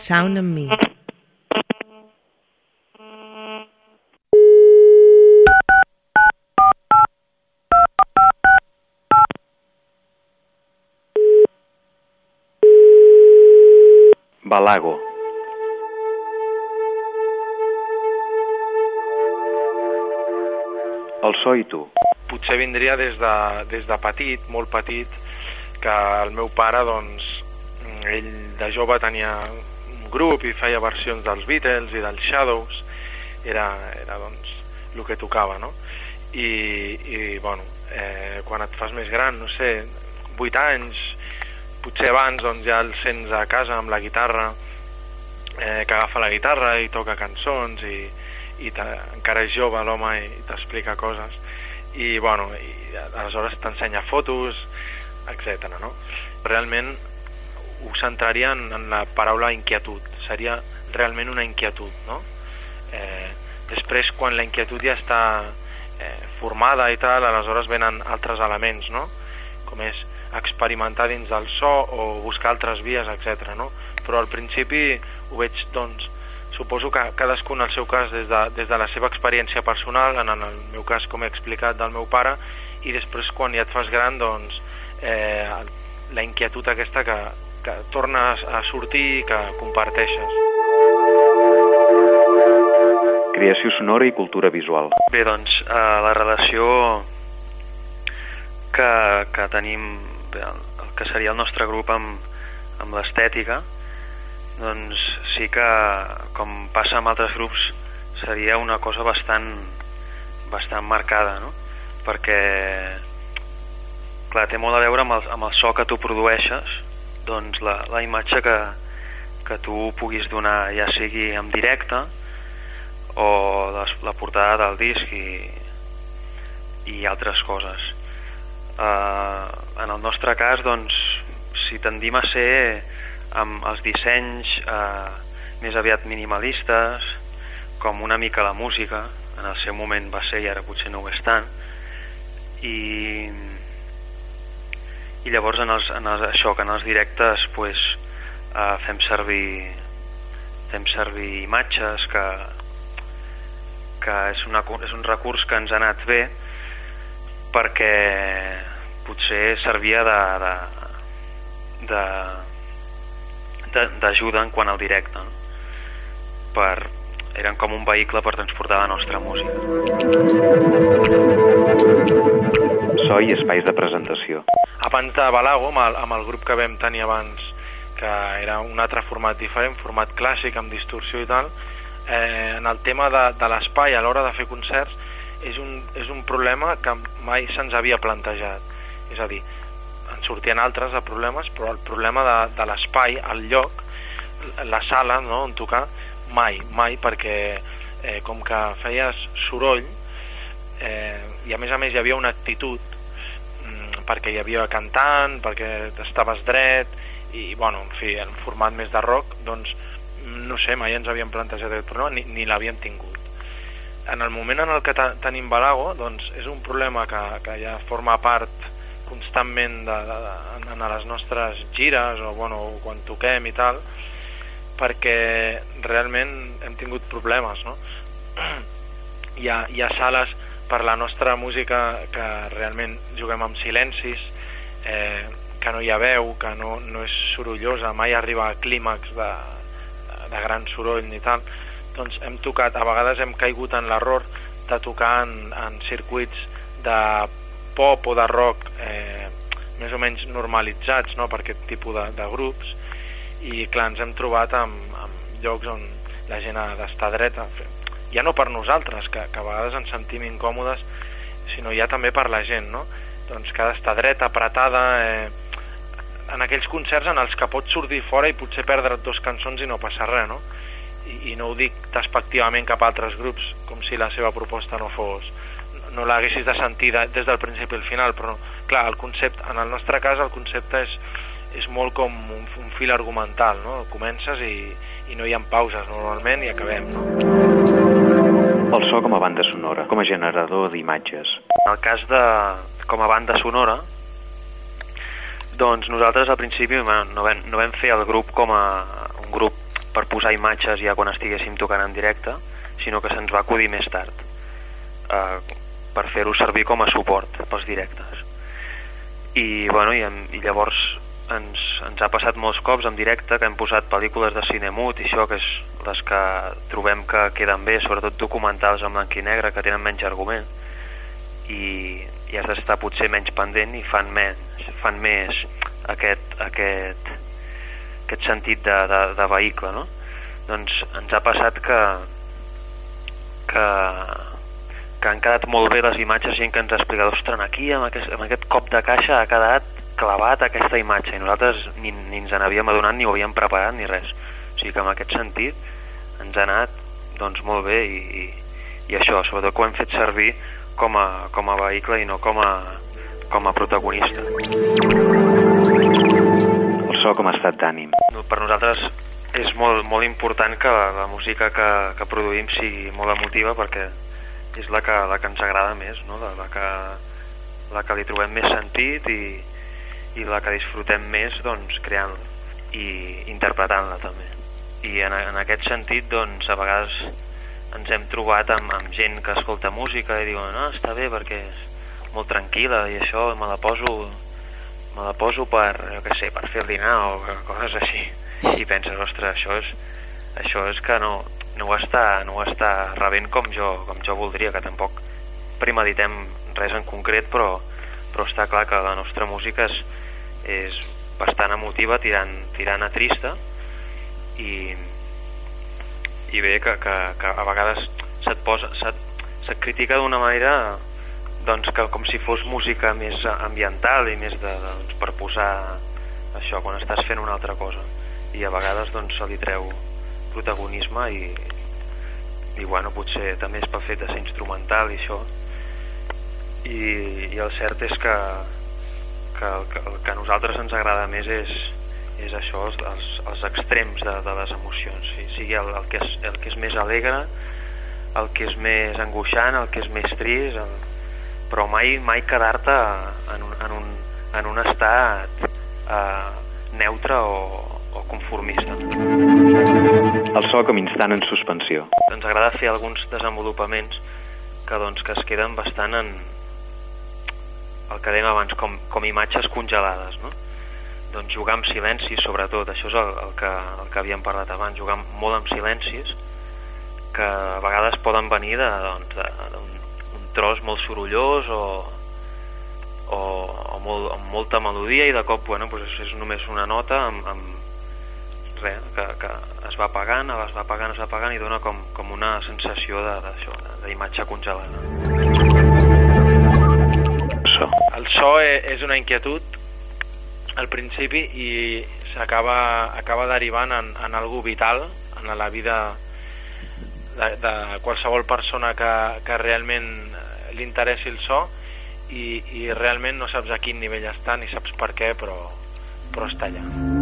Sound and Me. Balago. El so i tu. Potser vindria des de petit, molt petit, que el meu pare, doncs, ell de jove tenia un grup i feia versions dels Beatles i dels Shadows, era doncs, el que tocava, no? I bueno, quan et fas més gran, no sé, 8 anys, potser abans, doncs ja el sents a casa amb la guitarra, que agafa la guitarra i toca cançons i encara és jove l'home i t'explica coses i bueno, i aleshores t'ensenya fotos, etc. no? Realment ho centraria en la paraula inquietud, seria realment una inquietud, no? Després quan la inquietud ja està formada i tal, aleshores venen altres elements, no? Com és experimentar dins del so o buscar altres vies, etc. no? Però al principi ho veig, doncs, suposo que cadascú en el seu cas des de la seva experiència personal, en el meu cas com he explicat del meu pare, i després quan ja et fas gran, doncs la inquietud aquesta que tornes a sortir i que comparteixes. Creació sonora i cultura visual. Bé, doncs, la relació que tenim, el que seria el nostre grup amb l'estètica, doncs sí que, com passa amb altres grups, seria una cosa bastant marcada, no? Perquè, clar, té molt a veure amb el so que tu produeixes, doncs la imatge que tu puguis donar, ja sigui en directe o la portada del disc i altres coses. En el nostre cas, doncs, si tendim a ser amb els dissenys més aviat minimalistes, com una mica la música, en el seu moment va ser i ara potser no ho és tant, i llavors això, que en els directes pues, fem servir imatges que és un recurs que ens ha anat bé perquè potser servia d'ajuda en quant al directe, no? Eren com un vehicle per transportar la nostra música. So i espais de presentació. Abans de Balago, amb el grup que vam tenir abans, que era un altre format diferent, format clàssic amb distorsió i tal, en el tema de l'espai a l'hora de fer concerts és un problema que mai se'ns havia plantejat. És a dir, en sortien altres de problemes, però el problema de l'espai, el lloc, la sala, no, on tocar, mai, perquè com que feies soroll i a més hi havia una actitud perquè hi havia cantant, perquè estaves dret i, bueno, en fi, en format més de rock, doncs, no sé, mai ens havíem plantejat aquest problema ni l'havíem tingut. En el moment en el que tenim Balago, doncs, és un problema que ja forma part constantment en les nostres gires o, bueno, quan toquem i tal, perquè realment hem tingut problemes, no? Hi ha sales per la nostra música que realment juguem amb silencis, que no hi ha veu, que no és sorollosa, mai arriba a clímax de gran soroll ni tal. Doncs hem tocat, a vegades hem caigut en l'error de tocar en circuits de pop o de rock més o menys normalitzats, no?, per aquest tipus de grups, i clar, ens hem trobat amb llocs on la gent ha d'estar dreta, ja no per nosaltres, que a vegades ens sentim incòmodes, sinó ja també per la gent, no? Doncs que ha d'estar dreta, apretada, en aquells concerts en els que pots sortir fora i potser perdre't 2 cançons i no passa res, no? I no ho dic despectivament cap a altres grups, com si la seva proposta no l'haguessis de sentir des del principi al final, però clar, el concepte, en el nostre cas el concepte és molt com un fil argumental, no? Comences i no hi ha pauses normalment i acabem, no? El so com a banda sonora, com a generador d'imatges. En el cas com a banda sonora, doncs nosaltres al principi no vam fer el grup com a un grup per posar imatges ja quan estiguéssim tocant en directe, sinó que se'ns va acudir més tard, per fer-ho servir com a suport pels directes. I, bueno, i llavors ens ha passat molts cops en directe que hem posat pel·lícules de cine mut i això, que és les que trobem que queden bé, sobretot documentals en blanc i negre, que tenen menys argument i has d'estar potser menys pendent i fan més aquest sentit de vehicle, no? Doncs ens ha passat que han quedat molt bé les imatges, gent que ens ha explicat, ostres, aquí amb aquest cop de caixa ha quedat clavat aquesta imatge, i nosaltres ni ens n'havíem adonat, ni ho havíem preparat ni res. O sigui que en aquest sentit ens ha anat doncs molt bé i això, sobretot que ho hem fet servir com a vehicle i no com a protagonista. El so com a estat d'ànim. Per nosaltres és molt important que la música que produïm sigui molt emotiva, perquè és la que ens agrada més, no? la que li trobem més sentit i la que disfrutem més, doncs, creant i interpretant-la també. I en aquest sentit, doncs, a vegades ens hem trobat amb gent que escolta música i diuen, no, està bé perquè és molt tranquil·la i això me la poso per, jo què sé, per fer el dinar o coses així, i penses, ostres, això és que no ho està rebent com jo voldria, que tampoc premeditem res en concret, però està clar que la nostra música és bastant emotiva, tirant a trista, i bé, que a vegades se't critica d'una manera, doncs, que com si fos música més ambiental i més doncs, per posar això quan estàs fent una altra cosa, i a vegades doncs, se li treu protagonisme i bueno, potser també és pel fet de ser instrumental i això, i el cert és que el que a nosaltres ens agrada més és això, els extrems de les emocions, sigui el que és més alegre, el que és més angoixant, el que és més trist, però mai quedar-te en un estat neutre o conformista. El so com instant en suspensió. Ens agrada fer alguns desenvolupaments que es queden bastant en el que dèiem abans, com imatges congelades, no? Doncs jugar amb silencis, sobretot, això és el que havíem parlat abans, jugar molt amb silencis, que a vegades poden venir d'un tros molt sorollós o amb molta melodia, i de cop, bueno, doncs és només una nota amb res, que es va apagant i dona com una sensació d'imatge congelada. El so és una inquietud al principi i acaba derivant en algo vital en la vida de qualsevol persona que realment li interessi el so, i realment no saps a quin nivell està ni saps per què, però està allà.